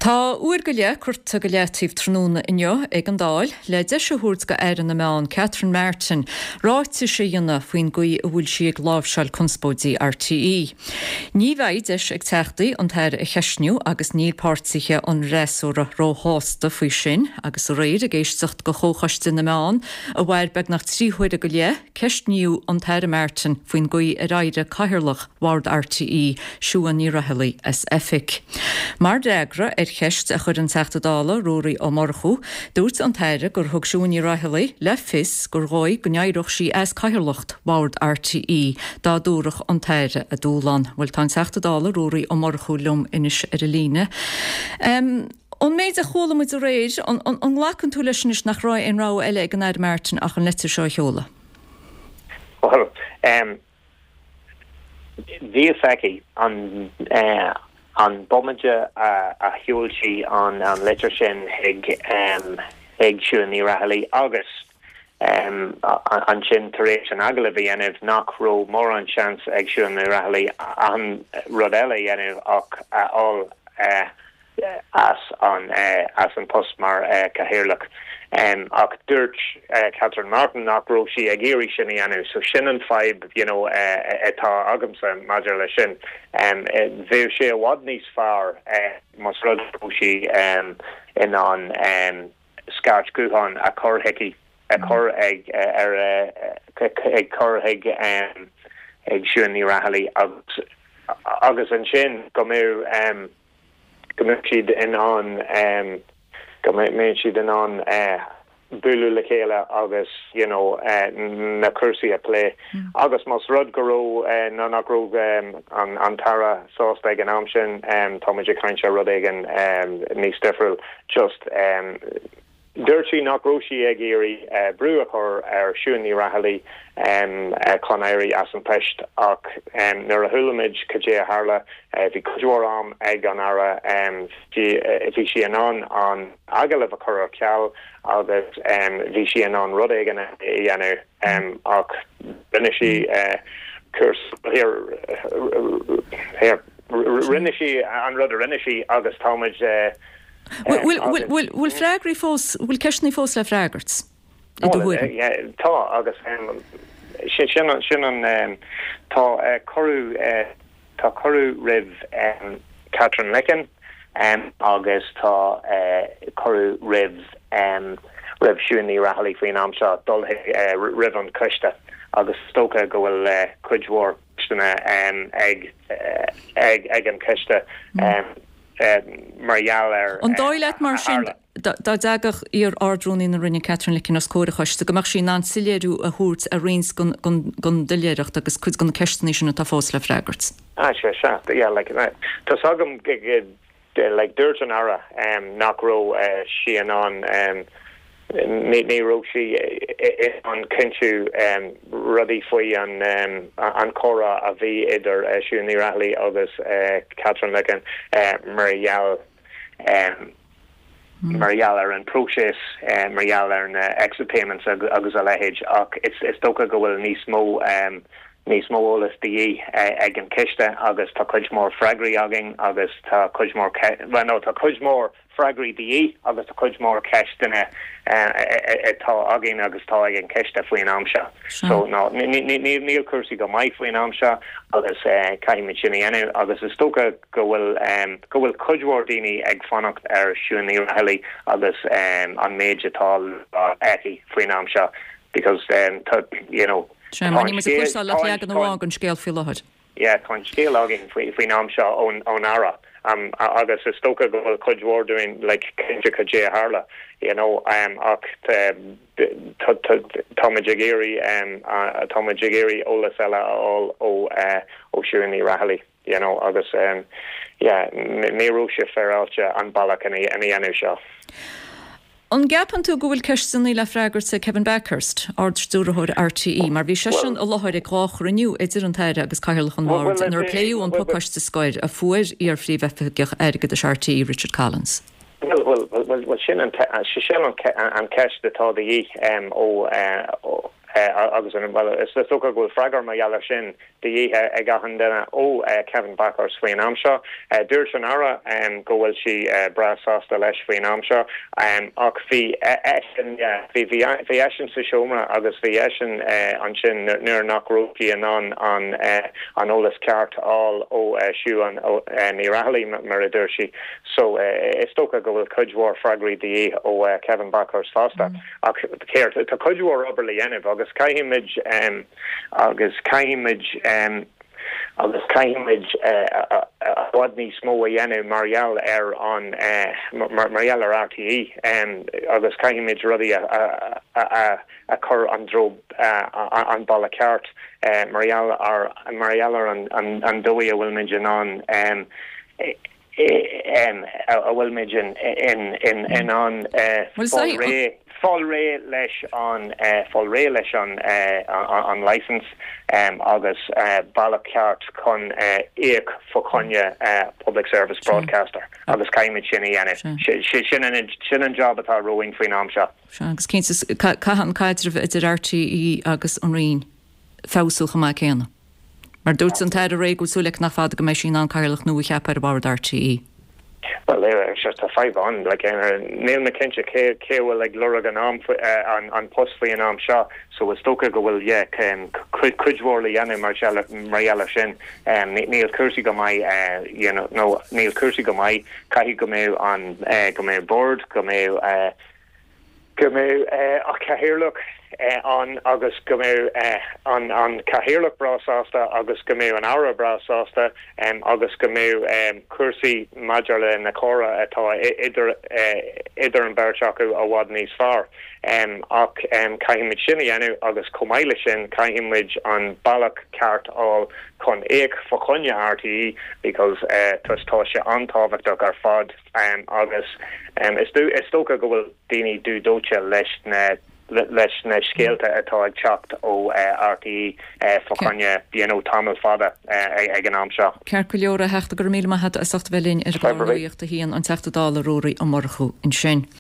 Tá uair go leith curtha go leataobh tráthnóna inniu ag an Dáil le deis a thabhairt do Aire na Meán Catherine Martin ráitis a dhéanamh faoin gcaoi a bhfuil sí ag láimhseáil conspóidí RTÉ. Ní bheidh deis ag Teachtaí an tAire a cheistniú agus níl páirtithe an fhreasúra róshásta faoi sin agus aréir ag éisteacht do Chomhchoiste na Meán a mhair beagnach 3 huaire go leith, ceistníodh an tAire Martin faoin gcaoi ar éirigh Cathaoirleach Bhord RTÉ, Siún Ní Raghallaigh, as oifig. Mar fhreagra ar cheist a chuir an Teachta Dála Ruairí Ó Murchú, dúirt an tAire gur thug Siún Ní Raghallaigh le fios gur dhóigh go n-éireodh sí as cathaoirleacht Bhord RTÉ dá dtabharfadh an tAire a dúshlán. Bhuel, tá an Teachta Dála Ruairí Ó Murchú liom anois ar an líne. Ón méid a chuala muid aréir, an nglacann tú leis anois nach raibh aon rogha eile ag an Aire Martin ach an leitir seo a sheoladh? Bhuel, Bhí fhios aici an an bomaite a sheol sí an litir sin chuig chuig Siún Ní Raghallaigh agus ansin tar éis an agallamh a dhéanamh nach raibh mórán seans ag Siún Ní Raghallaigh aon rud eile a dhéanamh ach a fháil as an as an post mar Chathaoirleach. Ach dúirt Catherine Martin nach raibh sí ag iarraidh sin a dhéanamh. So sin an fadhb you know atá agamsa maidir leis sin. Bheadh sé i bhfad níos fearr más rud go raibh sí in ann scairt ghutháin a chur chuici, a chur ag ar ag cur chuig ag Siún Ní Raghallaigh agus agus ansin go mbeadh go mbeadh siad in ann go mbeadh siad in ann bualadh le chéile agus you know na cúrsaí a phlé. Agus más rud go raibh nó nach raibh an an tAire sásta ag an am sin, tá muid ag caint ar rud éigin níos difriúil. Just Dúirt sí nach raibh sí ag iarraidh brú a chur ar Siún Ní Raghallaigh chun éirí as an post ach nuair a chuala muid cad é a tharla, bhí cuid mhór am ag an Aire, bhí sí in ann an agallamh a chur ar ceal agus bhí sí in ann rud éigin a dhéanamh ach rinne sí cúrsa, rinne sí an rud a rinne sí agus tá muid. Bhfuil freagraí fós, bhfuil ceisteanna fós le freagairt, i do thuairim? Tá, agus sin an, tá cuireadh, tá cuireadh roimh Katherine Licken agus tá cuireadh roimh, roimh Siún Ní Raghallaigh faoin am seo dul roimh an choiste agus is dócha go bhfuil cuid mhór ceisteanna ag, ag an choiste. mar gheall ar An dóigh leat mar sin, dá dtagadh iar-Ard-Rúnaí na Roinne Katherine Licken os comhair an choiste, go mbeadh sí in ann soiléiriú a thabhairt ar roinnt den doiléireacht agus cuid de na ceisteanna sin atá fós le freagairt? Ah, sea, sea, yeah, like, tá's agam, like, dúirt an Aire nach raibh sí in ann Ní raibh sí in ann cinntiú rudaí faoi an chomhrá a bhí idir Siún Ní Raghallaigh agus Katherine Licken mar gheall mar gheall ar an próiseas, mar gheall ar na exit payments agus a leithéid ach is dócha go bhfuil níos mó níos mó eolas de dhíth ag an choiste agus tá cuid mhór freagraí againn agus tá cuid mhór, bhuel no, tá cuid mhór freagraí de dhíth agus tá cuid mhór ceisteanna atá againn agus atá ag an choiste faoin am seo. So no, níl cúrsaí go maith faoin am seo agus caithfimid sin a dhéanamh agus is dócha go bhfuil go bhfuil cuid mhór daoine ag fanacht ar Siún Ní Raghallaigh agus an méid atá le rá aici faoin am seo because tá you know tá an scéal leagan amháin den scéal faoi láthair. Yeah, tá an scéal againn faoin am seo ón Aire agus is dócha go bhfuil cuid mhór dúinn like cinnte cad é a tharla, you know, ach táimid ag iarraidh táimid ag iarraidh eolas eile a fháil ó ó Siún Ní Raghallaigh, you know, agus yeah, ní raibh sé féaráilte an bealach ina dhéanamh seo. An gceapann tú go bhfuil ceisteanna le freagairt ag Kevin Bakhurst, Ard-Stiúrthóir RTÉ, mar bhí seisean i láthair ag 2 chruinniú idir an tAire agus Cathaoirleach an Bhoird inar pléadh an pacáiste scoir a fuair iar-Phríomhoifigeach Airgeadais RTÉ, Richard Collins? Bhuel, sin an ceist atá de dhíth ó. Agus an, bhuel, is dócha go bhfuil freagra mar gheall air sin de dhíth ag achan duine ó Kevin Bakhurst faoin am seo. Dúirt an Aire go bhfuil sí breá sásta leis faoin am seo ach bhí eisean, yeah, bhí, bhí, bhí eisean sa seomra agus bhí eisean ansin nuair nach raibh sí in ann an, an eolas ceart a fháil ó Siún Ní Raghallaigh, mar a dúirt sí. So, is dócha go bhfuil cuid mhór freagraí de dhíth ó Kevin Bakhurst fosta. Ach céard, tá cuid mhór obair le dhéanamh agus caithfidh muid, agus caithfidh muid, agus caithfidh muid i bhfad níos mó a dhéanamh mar gheall ar an, mar gheall ar RTÉ agus caithfidh muid rudaí a chur an dtreo, an bealach ceart mar gheall ar, mar gheall ar an dóigh a bhfuil muid in ann. a bhfuil muid in ann fáil réidh fáil réidh leis an fáil réidh leis an an licence agus bealach ceart chun íoc fá choinne public service broadcaster agus caithfimid sin a dhéanamh. Sin an sin an job atá romhainn faoin am seo. Sea, agus cinnte caithfidh an caidreamh idir RTÉ agus an Roinn feabhsú chomh maith céanna. Mar dúirt an tAire Ray go bhfuil súil aici nach fada go mbeidh sí in ann cathaoirleach nua a cheapadh ar bhord RTÉ. Bhuel, sure, tá fadhb ann. Like, níl mé cinnte cé cé a bhfuil ag lorg an am an an post faoi an am seo, so is dócha go bhfuil, yeah, cuid cuid mhór le dhéanamh mar mar gheall ar sin. Níl cúrsaí go maith, you know, no, níl cúrsaí go maith. Caithfidh go mbeidh an go mbeidh bord, go mbeidh go mbeidh an cathaoirleach ann agus go mbeidh an cathaoirleach breá sásta agus go mbeidh an Aire breá sásta agus go mbeidh cúrsaí maidir le na comhrá atá idir idir an bheirt acu i bhfad níos fearr. Ach caithfidh muid sin a dhéanamh agus chomh maith le sin caithfidh muid an bealach ceart a fháil chun íoc fá choinne RTÉ because tá sé an-tábhachtach ar fad. Agus is dócha go bhfuil daoine dubh dóite leis na leis na scéalta atá ag teacht ó RTÉ fá choinne you know tamall fada ag an am seo. Ceart go leor, a Theachta, go raibh míle maith agat as ucht a bheith linn ar an gclár Nuacht a hAon, an Teachta Dála Ruairí Ó Murchú ansin.